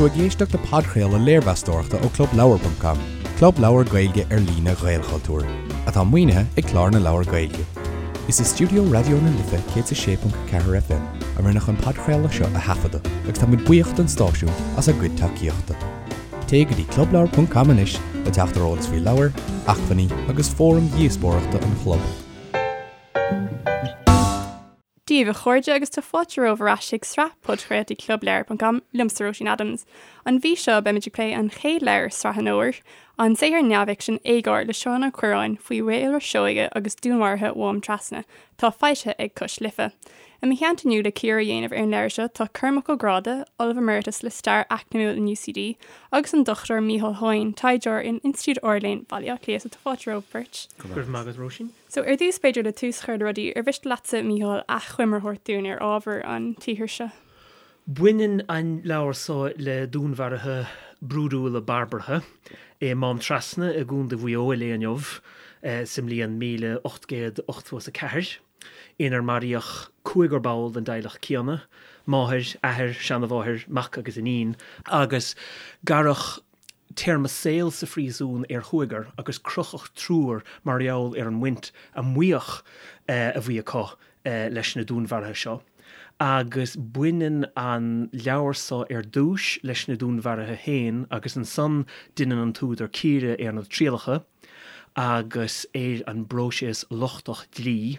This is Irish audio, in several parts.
tú ag éisteacht le podchraoladh léirmheastóireachta ó ClubLeabhar.com, club leabhar Gaeilge ar líne Ghaelchultúir, atá maoinithe ag Clár na Leabhar Gaeilge. Is i stiúideo Raidió na Life 106.4 FM a rinneadh an podchraoladh seo a thaifeadadh agus tá muid buíoch don stáisiún as a gcuid tacaíochta. Téigh go dtí clubleabhar.com anois le teacht ar eolas faoi leabhair, acmhainní agus fóraim dhíospóireachta an chlub. Dia daoibh a chairde agus tá fáilte romhaibh ar ais chuig sraith podchraoltaí clubleabhar.com liomsa Róisín Adams. An mhí seo beimid ag plé an chéad leabhar i sraith an fhómhair, an saothar neamhfhicsin Éagóir le Seán Ó Cuirreáin faoi Mhaolra Seoighe agus dúnmharuithe Mhám Trasna, atá foilsithe ag Cois Life. I mo theannta inniu le cíoradh a dhéanamh ar an leabhar seo tá Cormac Ó Gráda, Ollamh Emeritus le Stair Eacnamúil in UCD, agus an Dr Micheál Hoyne, taighdeoir in Institiúid Ard-Léinn Bhaile Átha Cliath. So tá fáilte romhaibh beirt. Go raibh maith agat Róisín. So, ar dtús, b'fhéidir, le tús a chur le rudaí, ar mhiste leatsa, Mícheál, achoimre a thabhairt dúinn ar ábhar an tsaothair seo? Baineann an leabhar so le dúnmharuithe brúidiúla barbartha i Mám Trasna i gContae Mhaigh Eo an lae inniu sa mbliain 1884, inar maraíodh cúigear ball den dteaghlach céanna, máthair, athair, seanamháthair, mac agus iníon, agus gearradh téarma saoil sa phríosún ar chúigear agus crochadh triúr mar gheall ar an mbaint a maíodh a bhí acu leis na dúnmharuithe seo. Agus baineann an leabhar so ar dtúis leis na dúnmharuithe féin agus ansan deineann an t-údar cíoradh ar na trialacha agus ar an bpróiseas lochtach dlí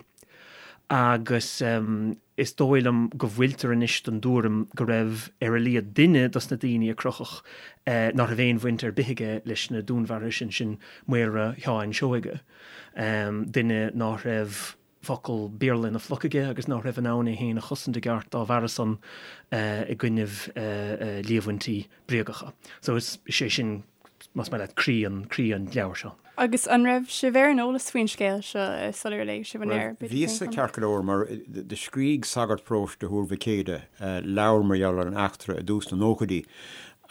agus. Is dóigh liom go bhfuiltear anois den dtuairim go raibh ar a laghad duine dos na daoine a crochadh ná raibh aon bhaint ar bith aige leis na dúnmharuithe sin, sin Maolra Sheáin Seoige, duine ná raibh focal Béarla ina phluc aige agus ná raibh in ann é féin a chosaint i gceart dá bharra san i gcoinnibh líomhaintí bréagacha. So is é sin, más maith leat, croí an, croí an leabhair seo. Agus an raibh sibh ar an eolas faoin scéal seo sular léigh sibh an leabhar? Bhuel, bhíos-sa ceart go leor mar do scrígh sagart paróiste Thuar Mhic Éadaigh leabhar mar gheall ar an eachtra i dtús na nóchaidí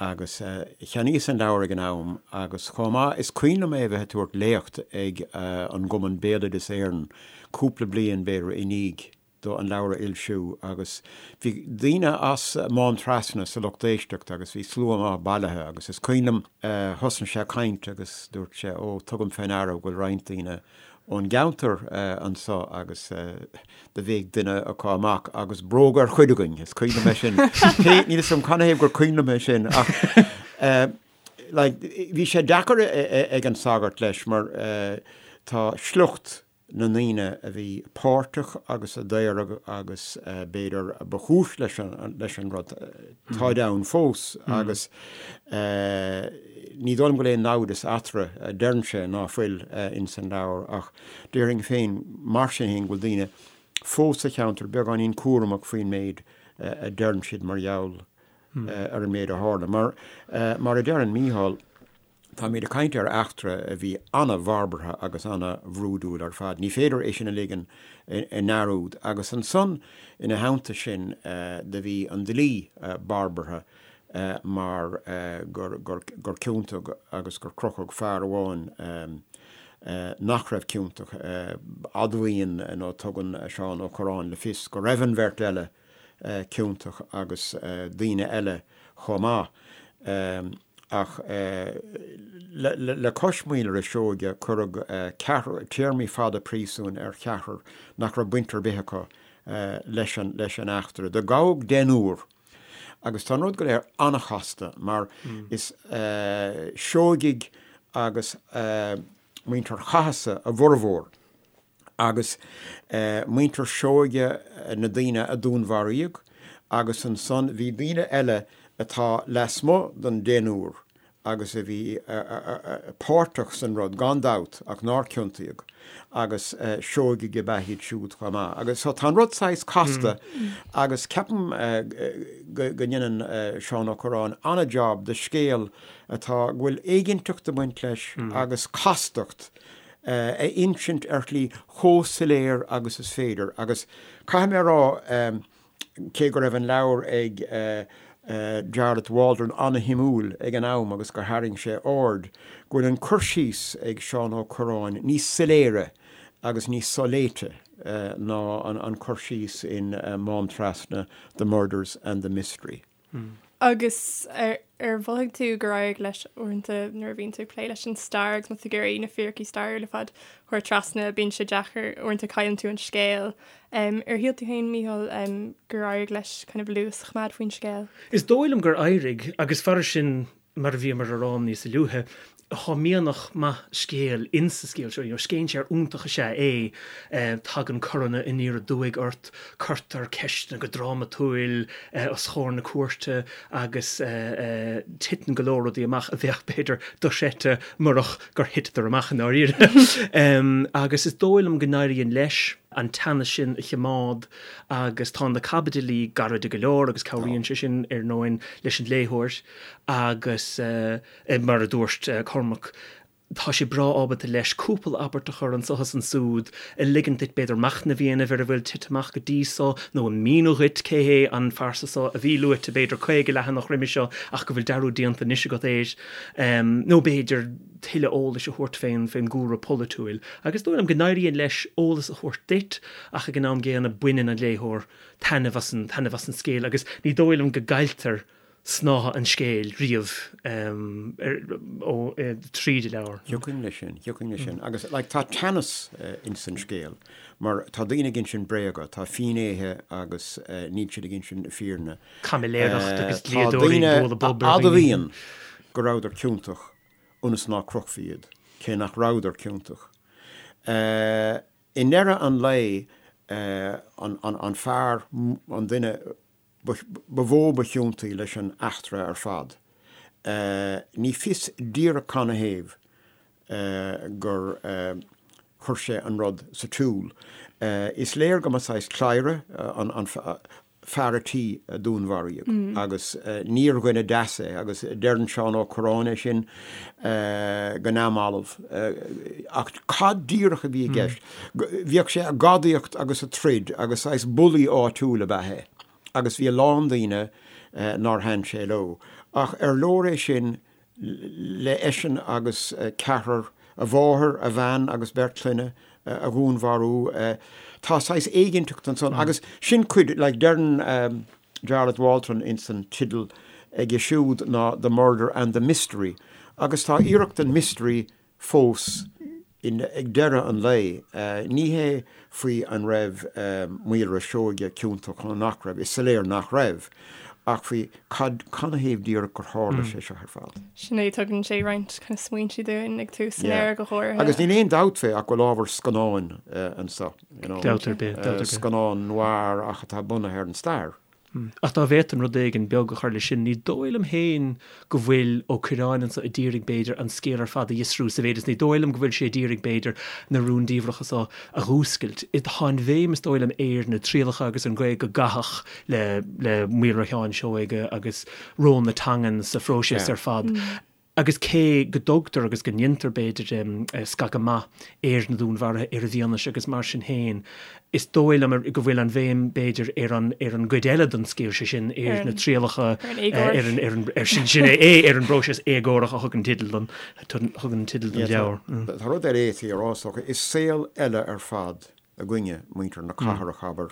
agus cheannaíos an leabhar ag an am agus chomh maith is cuimhin liom é a bheith ag tabhairt léacht ag an gCumann Béaloideas Éireann cúpla bliain b'fhéidir i ndiaidh do an leabhar a fhoilsiú agus bhí daoine as Mám Trasna sa lucht éisteachta agus bhí slua maith bailithe agus is cuimhin liom thosnaigh sé ag caint agus dúirt sé ó tugaim fé ndeara go bhfuil roinnt daoine ón gceantar anso agus do bhéic duine acu amach agus bróg ar chuid againn, is cuimhin liom é sin. Cé, níl 'fhios agam canathaobh gur cuimhin liom é sin ach like bhí sé deacair ag an sagart leis mar tá sliocht na ndaoine a bhí páirteach agus a daoradh agus b'fhéidir ba chúis leis an rud, táid ann fós agus ní dóigh liom go bhfuil aon naimhdeas eatarthu, deireann sé ná fuil ins an leabhar ach déarfainn féin mar sin féin go bhfuil daoine fós sa cheantar beagáinín cúramach faoin méid a deireann siad mar gheall ar an méid a tharla. Mar, mar a deireann Mícheál, Táimid ag caint ar eachtra a bhí an-bharbartha agus an-bhrúidiúil ar fad. Ní féidir é sin a ligean i ndearúd. Agus ansan, ina theannta sin, do bhí an dlí barbartha mar gur ciontaíodh agus gur crochadh fear amháin nach raibh ciontach. Admhaíonn nó tugann Seán Ó Cuirreáin le fios go raibh an bheirt eile ciontach agus daoine eile chomh maith. Ach le cois Mhaolra Seoige cuireadh ceathrar, téarmaí fada príosúin ar cheathrar nach raibh baint ar bith acu leis an eachtra. Do gabhadh deichniúr agus tá an rud go léir an-chasta mar is Seoigigh agus muintir Chathasaigh a bhformhór. Agus muintir Seoige na daoine a dúnmharaíodh, agus ansan bhí daoine eile atá lasmuigh den deichniúr agus a bhí páirteach san rud, gan dabht, ach nár ciontaíodh, agus Seoigigh ab ea iad siúd chomh maith. Agus so tá an rud saghas casta agus ceapaim go ndeineann Seán Ó Cuirreáin an-jab de scéal atá, go bhfuil éiginnteacht ag baint leis agus castacht a insint ar shlí chomh soiléir agus is féidir. Agus caithfidh mé a rá, cé go raibh an leabhar ag Jarlath Waldron an-shuimiúil ag an am agus gur tharraing sé aird, go bhfuil an cur síos ag Seán Ó Cuirreáin níos soiléire agus níos soléite ná an cur síos in Mám Trasna, The Murders and the Mystery. Agus ar. Ar mhothaigh tú gur éirigh leis uaireanta nuair a bhíonn tú ag plé leis an stair agus má tá tú ag iarraidh na fíricí stairiúla ar fad a chur trasna, bíonn sé deacair, uaireanta cailleann tú an scéal. Ar shíl tú féin, Mícheál, gur éirigh leis kind of luas a choimeád faoin scéal? Is dóigh liom gur éirigh, agus fairis sin mar a bhíomar a rá níos luaithe, tá mianach maith scéil insa scéal seo. You know, scéinséir iontach is ea é. Tagann coranna aniar aduaidh ort, cuirtear ceisteanna go drámatúil os chomhair na cúirte agus titeann go leor rudaí amach a bheadh, b'fhéidir, dochreidte murach gur thiteadar amach i ndáiríre. Agus is dóigh liom go n-éiríonn leis an teannas sin a choimeád agus tá na caibidilí gairide go leor agus cabhraíonn sé sin, ar ndóin, leis an léitheoir agus, mar a dúirt Cormac, tá sé breá ábalta leis cúpla abairt a chur anso is ansúd, a ligeann duit b'fhéidir machnamh a dhéanamh ar a bhfuil tite amach go dtí so nó a míniú dhuit cé hé an phearsa so a bhí luaite b'fhéidir 50 leathanach roimis seo ach go bhfuil dearúd déanta anois agat air, nó b'fhéidir tuilleadh eolais a thabhairt fén fén gcúlra polaitiúil. Agus is dóigh liom go n-éiríonn leis eolas a thabhairt duit ach ag an am gcéanna baineann an léitheoir taitneamh as an taitneamh as an scéal agus ní dóigh liom go gcailltear snáithe an scéil riamh ó tríd an leabhar. Thiocfainn leis sin, thiocfainn leis sin. Agus like tá teannas ins an scéal mar tá daoine ag insint bréaga, tá finnéithe agus níl siad ag insint na fírinne. Caimiléireacht agus dlíodóirí ag bualadh bob ar dhaoine. Tá daoine a admhaíonn go rabhadar ciontach ionas ná crochfaí iad, cé nach rabhadar ciontach. I ndeireadh an lae, an fear, an duine ba mhó ba chiontaí leis an eachtra ar fad, ní fios díreach canathaobh gur chuir sé an rud sa tsiúl. Is léir go mba saghas cladhaire an fear a' tí a dúnmharaíodh agus níor dhuine deas é agus deireann Seán Ó Cuirreáin é sin go neamhbhalbh. Ach cad díreach a bhí i gceist? Bhíodh sé ag gadaíocht agus ag troid agus saghas bulaí áitiúil ab ea é agus bhí a lán daoine nár thaitin sé leo. Ach ar leor é sin le eisean agus ceathrar, a mháthair, a bhean agus beirt clainne, a dhúnmharú. Tá saghas éiginnteacht ansan agus sin cuid, like, deireann Jarlath Walton ins an teideal aige siúd ná The Murder and the Mystery agus tá iarracht den mystery fós ag deireadh an lae. Ní hé faoi an raibh Maolra Seoige ciontach nó nach raibh, is soiléir nach raibh, ach faoi cad, canathaobh díreach gur tharla sé seo ar fad. Sin é, tugann sé roinnt kind of smaointe dúinn ag tús an leabhair go háirithe. Agus níl aon dabht fé ach go bhfuil ábhar scannáin anseo, you know. Dabht ar bith, dabht ar bith. Scannán noir ach atá bunaithe ar an stair. Ach dá bhféadfainn rud éigin beag a chur leis sin, ní dóigh liom féin go bhfuil Ó Cuirreáin anso a d'iarraidh, b'fhéidir, an scéal ar fad a fhiosrú sa mhéid is ní dóigh liom go bhfuil sé a d'iarraidh, b'fhéidir, na rúndiamhracha so a dh'fhuascailt. Tá an bhéim, is dóigh liom, ar na trialacha agus an gcaoi go gcaitheadh le le Maolra Sheáin Seoige agus ról na teangan sa phróiseas ar fad. Agus cé go dtugtar agus go ndéantar, b'fhéidir, scagadh maith ar na dúnmharuithe, ar an bhfianaise agus mar sin féin, is dóigh liom go bhfuil an bhéim, b'fhéidir, ar an ar an gcuid eile den scéal, sé sin, ar na trialacha, ar an ar an ar sin sin é ar an bpróiseas éagórach a thugann teideal don thugann teideal don leabhar. Tá rud eile a fhéadfaí a rá, is dócha. Is saol eile ar fad againne, muintir na cathrach, abair,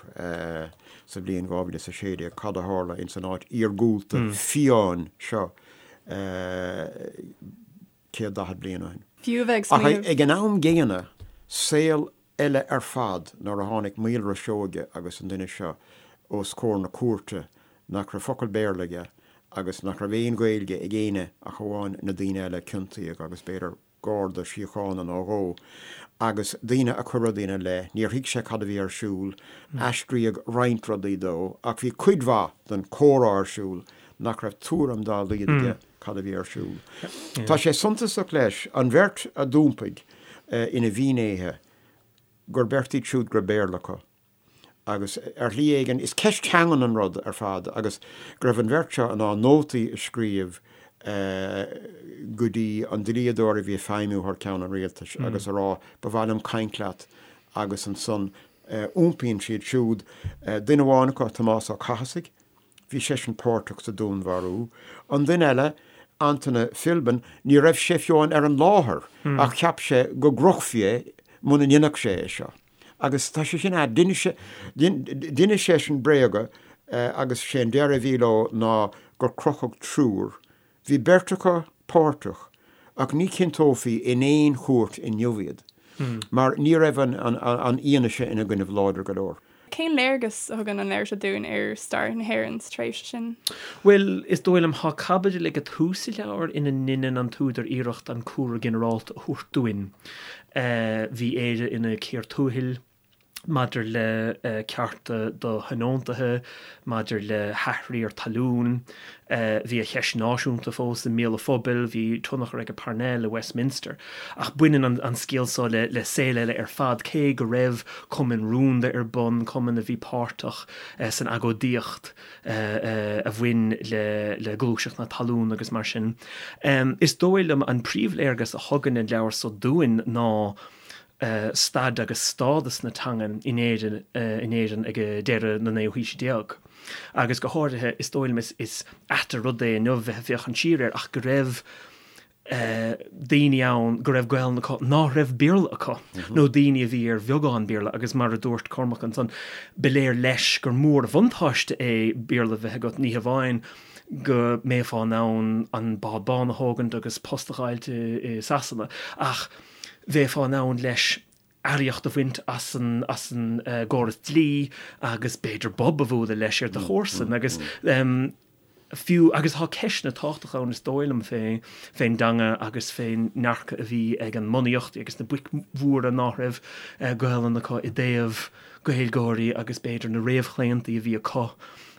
sa bhliain 2016, cad a tharla ins an áit iargúlta fiáin seo 140 bliain ó shin. Fiú a bheith ag smaoineamh. Ach ag an am gcéanna, saol eile ar fad nuair a tháinig Maolra Seoige agus an duine seo os comhair na cúirte nach raibh focal Béarla aige agus nach raibh aon Ghaeilge ag éinne ach amháin na daoine eile a ciontaíodh agus b'fhéidir garda síochána nó dhó, agus daoine a chuir rudaí ina leith. Níor thuig sé cad a bhí ar siúl. Aistríodh roinnt rudaí dó, ach bhí cuid mhaith den chomhrá ar siúl nach raibh tuairim dá laghad aige cad a bhí ar siúl. Tá sé suntasach leis, an bheirt a d'iompaigh ina bhfinnéithe, gur beirt iad siúd go raibh Béarla acu. Agus ar shlí éigin, is ceist teangan an rud ar fad agus go raibh an bheirt seo in ann nótaí a scríobh go dtí an dlíodóir a bhí ag feidhmiú thar ceann an rialtais agus a rá 'ba mhaith liom caint leat' agus ansan iompaíonn siad siúd, duine amháin acu, Tomás Ó Cathasaigh, bhí seisean páirteach sa dúnmharú, an duine eile, Antaine Philbin, ní raibh sé fiú amháin ar an láthair ach cheap sé go gcrochfaí é muna ndéanfadh sé é seo. Agus tá sé sin ait. D'inis d'inis seisean bréaga agus sé an deireadh a bhí leo ná gur crochadh triúr. Bhí beirt acu páirteach ach ní chinnteofaí in aon chúirt inniu iad mar ní raibh an fhianaise ina gcoinnibh láidir go leor. Cén léargas a thugann an leabhar seo dúinn ar stair na hÉireann sa tréimhse sin? Bhuel, is dóigh liom, tá caibidil ag tús an leabhair ina ndeineann an t-údar iarracht an cúlra ginearálta a thabhairt dúinn. Bhí Éire ina cíor tuathail maidir le cearta do thionóntaithe, maidir le hathriar talún. Bhí an cheist náisiúnta fós i mbéal an phobail, bhí tionchar ag Parnell i Westminster. Ach baineann an scéal seo le saol eile ar fad, cé go raibh cumainn rúnda ar bun, cumainn a bhí páirteach san agóidíocht a bhain le gluaiseacht na talún agus mar sin. Is dóigh liom an príomhléargas a thugann an leabhar seo dúinn ná, staid agus stádas na teangan in Éirinn in Éirinn ag deireadh na naoú haoise déag. Agus go háirithe, is dóigh liom, is ait an rud é inniu bheith ag féachaint siar air ach go raibh daoine ann go raibh Gaelainn acu ná raibh Béarla acu, nó daoine a bhí ar bheagán Béarla agus mar a dúirt Cormac ansan, ba léir leis gur mór an bhuntáiste é Béarla a bheith agat, ní hamháin go mbeifeá in ann an bád bán a thógaint agus post a dh'fháilt i Sasana ach bheifeá in ann leis earraíocht a bhaint as an as an gcóras dlí agus b'fhéidir bob a bhualadh leis ar do chomharsain agus fiú agus tá ceisteanna tábhachtacha ann is dóigh liom fé fén dteanga agus fén ndearcadh a bhí ag an mbunaíocht agus na boic mhóra ná raibh Gaelainn acu i dtaobh Gaeilgeoirí agus b'fhéidir na réamhchlaontaí a bhí acu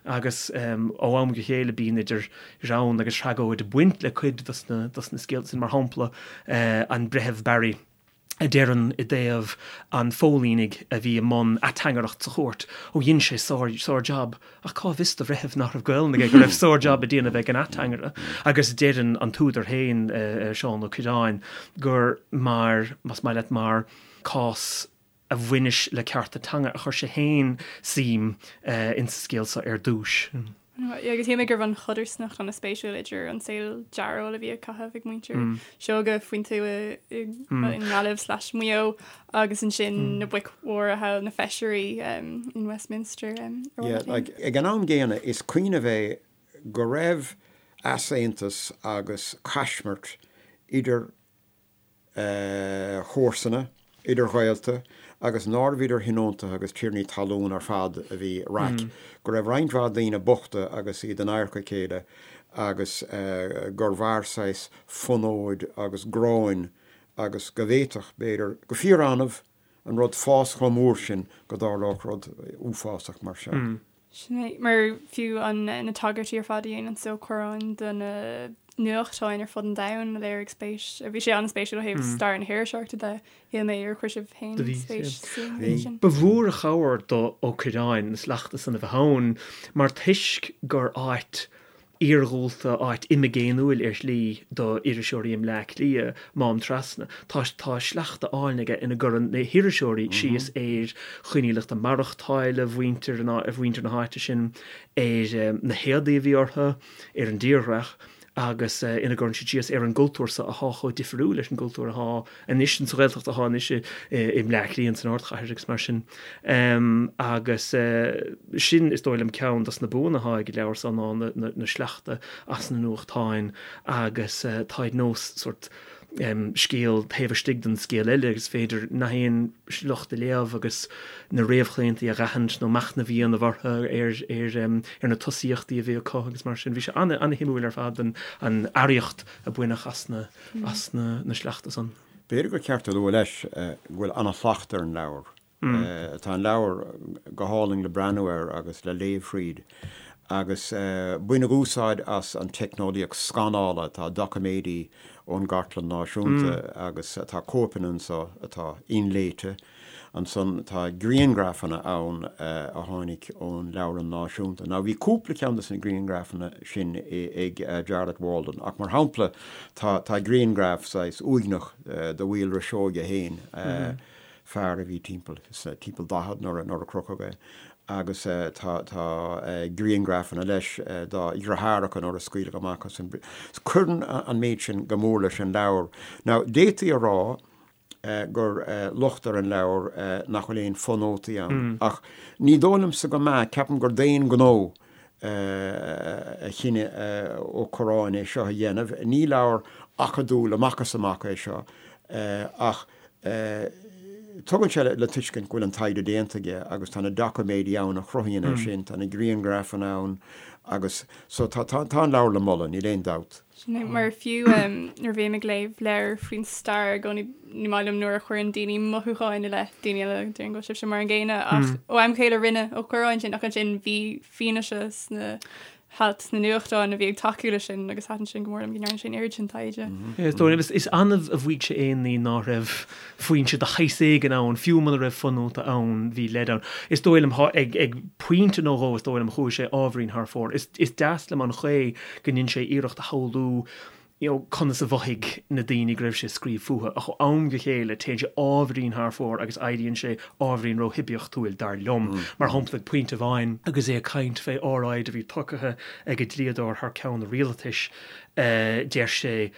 agus ó am go chéile bíonn idir ghreann agus thragóid ag baint le cuid dos na dos na scéalta sin, mar shampla an Breitheamh Barry a deireann i dtaobh an phóilínigh a bhí i mbun ateangaireacht sa chúirt, ó dhein sé sár sár jab, ach cá bhfios do bhreitheamh nach raibh Gaelainn aige go raibh sár jab á dhéanamh ag an ateangaire agus deireann an t-údar féin, Seán Ó Cuirreáin, gur mar, más maith leat, mar cás a bhaineas le cearta teanga a chuir sé féin suim insa scéal seo ar dtúis. Agus shíl mé go raibh an chodarsnacht an-spéisiúil idir an saol dearóil a bhí á chaitheamh ag muintir Seoige faoin tuath i nGaillimh slash Maigh Eo agus ansin na boic mhóra thall, na feisirí in Westminster. Ag an am gcéanna, is cuimhneamh é go raibh easaontas agus caismirt idir chomharsana, idir ghaolta, agus nárbh idir thionóntaithe agus tiarnaí talún ar fad a bhí raic, go raibh roinnt mhaith daoine bochta agus iad in adharca a chéile agus gur mhair saghas fonóid agus gráin agus go bhféadfadh, b'fhéidir, go fíor-annamh, an rud fás chomh mór sin go dtarlódh rud uafásach mar seo. Sin é, mar fiú an na tagairtí ar fad a dhéanann Ó Cuirreáin do na nuachtáin ar fud an domhain a léirigh spéis, bhí sé an-spéisiúil ó thaobh stair na hiriseoireachta de, shíl mé, ar chuir sibh féin spéis sa méid sin? Ba mhór an chabhair do Ó Cuirreáin na sleachta san a bheith ann mar toisc gur áit iarghúlta, áit imigéiniúil ar shlí do iriseoirí i mBleá Cliath, Mám Trasna. Tá tá sleachta álainn aige ina gcuireann na hiriseoirí síos ar choinníollacha maireachtála mhuintir mhuintir na háite sin, ar na héadaí a bhí orthu, ar an dtírdhreach agus ina gcuireann siad síos ar an gcultúr so athá chomh difriúil leis an gcultúr athá anois sa Ghaeltacht athá anois i mBleá Cliath san ardchathair agus mar sin. Agus sin is dóigh liom ceann dos na buanna athá ag an leabhar so ná na sleachta as na nuachtáin agus táid nós sórt scéal taobh istigh den scéal eile agus is féidir nach aon sliocht a léamh agus na réamhchlaontaí a dh'aithint nó machnamh a dhéanamh orthu ar ar ar na tosaíochtaí a bhí acu agus mar sin. Bhí sé ana-shuimiúil ar fad an an earraíocht a baineadh as na as na sleachta san. B'fhéidir gur ceart a lua leis go bhfuil ana-shlacht ar an leabhar. Tá an leabhar go hálainn le breathnú air agus le léamh thríd agus baineadh úsáid as an teicneolaíocht scanála, tá doiciméidí ón gCartlann Náisiúnta agus tá cóipeanna anso atá inléite. Ansan tá grianghrafanna ann a tháinig ón Leabharlann Náisiúnta. Now bhí cúpla ceann de na grianghrafanna sin ag Jarlath Walden ach mar shampla tá tá grianghraf saghas uaigneach de Mhaolra Seoige féin, fear a bhí timpeall timpeall 40 nuair a nuair a crochadh é agus tá tá grianghrafanna leis dá dheartháireacha nuair a scaoileadh amach as an Cuireann an méid sin go mór leis an leabhar. Now d'fhéadfaí a rá gur locht ar an leabhar nach bhfuil aon fonótaí ann. Ach ní dóigh liomsa go mbeadh, ceapaim gur d'aon ghnó. A chinneadh Ó Corráin é seo a dhéanamh. Ní leabhar acadúil amach is amach é seo ach tugann sé le tuiscint go bhfuil an taighde déanta aige agus tá na doiciméidí ann a chruthaíonn é sin, tá na grianghrafanna ann agus so tá an leabhar le moladh, níl aon dabht. Sin é, mar fiú nuair a bhím ag léamh leabhar faoin stair i gcónaí ní maith liom nuair a chuireann daoine mothúcháin i leith daoine eile, déarfainn go bhfuil sibhse mar an gcéanna ach ó am go chéile rinne Ó Corráin sin ach ansin bhí fianaise sna hailt sna nuachtáin a bhí ag tacú leis sin agus thaitin sin go mór liom go ndearna sé an oiread sin taighde. Is dóigh liom, is annamh a mhaígh sé aon ní ná raibh foinse de shaghas éigin ann, fiú muna raibh fonóta ann, bhí leid ann. Is dóigh liom, ag pointe nó dhó, is dóigh liom, chuaigh sé ábhairín thar fóir. Is deas liom an chaoi go ndein sé iarracht a shamhlú you know conas a mhothaigh na daoine go raibh sé ag scríobh fúthu, ach ó am go chéile téann sé ábhairín thar fóir agus éiríonn sé ábhairín ró-shuibiachtúil, dar liom. Mar shampla, ag pointe amháin agus é ag caint fé óráid a bhí tugtha ag an dlíodóir thar ceann an rialtais, deir sé,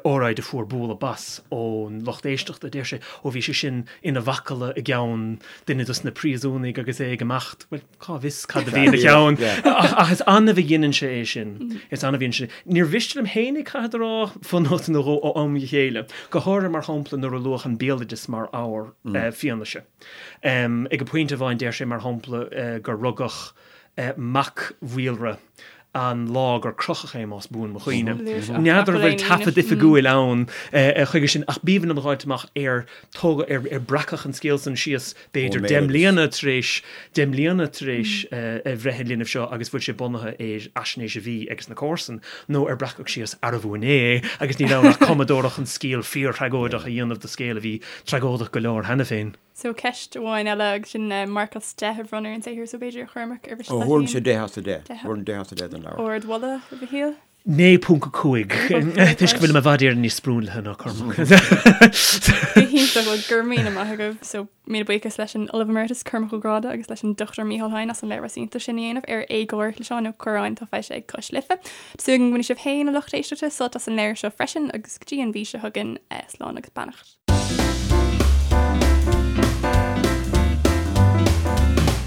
óráid a fuair bualadh bas ón lucht éisteachta, deir sé, ó bhí sé sin ina mhacalla i gceann duine dos na príosúnaigh agus é ag imeacht. Bhuel, Cá bhfios cad a bhí ina cheann? Ach is annamh a dheineann sé é sin. Is annamh a dhéanann sé. Níor mhiste liom féinig, caithfead a rá, fonóta nó dhó ó am go chéile. Go háirithe, mar shampla, nuair a luadh an béaloideas mar ábhar fianaise. Ag an pointe amháin deir sé, mar shampla, gur rugadh mac Mhaolra an lá gur crochadh é, más buan mo chuimhne. N'fheadar an bhfuil taifead oifigiúil ann chuige sin, ach b'aoibhinn liom a dh'fháilt amach ar tógadh, ar breacadh an scéal san síos b'fhéidir deich mbliana tar éis, deich mbliana tar éis bhreith an linbh seo agus bhfuil sé bunaithe ar fhaisnéis a bhí ages na comharsana, nó ar breacadh síos arbh inné é agus níl ann ach cumadóireacht chun scéal fíor-thragóideach a dhéanamh de scéal a bhí tragóideach go leor cheana féin. So ceist amháin eile agus sin marc as 10 a bhronnadh ar an saothar so b'fhéidir a Chormaic ar mhiste leat féin. Thabharfainnse 10 as 10. Thabharfainn 10 as 10 don leabhar. Ardmholadh, a Mhichíl? 9.5 toisc go bhfuilim i bhfad Éireann níos sprionlaithe ná Cormac. Go hiontach, bhuel go raibh míle maith agaibh. So míle buíochas leis an Ollamh Emeritus Cormac Ó Gráda agus leis an Dr Mícheál Heyn as an léirmheas iontach sin a dhéanamh ar Éagóir le Seán Ó Corráin atá foilsithe ag Cois Life. Tá súil agam go mbainfidh sibh féin a lucht éisteachta sult as an leabhar seo freisin agus go dtí an mhí seo chugainn, slán agus beannacht.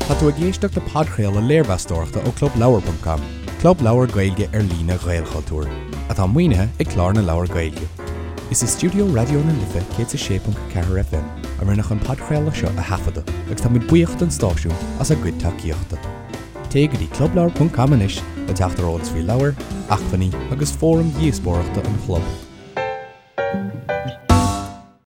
Tá tú ag éisteacht le podchraoladh léirmheastóireachta ó ClubLeabhar.com, club leabhar Gaeilge ar líne Ghaelchultúir, atá maoinithe ag Clár na Leabhar Gaeilge. Is i stiúideo Raidió na Life 106.4 FM a rinneadh an podchraoladh seo a thaifeadadh agus táimid buíoch don stáisiún as a gcuid tacaíochta. Téigh go dtí clubleabhar.com anois le teacht ar eolas faoi leabhair, acmhainní agus fóraim dhíospóireachta an chlub.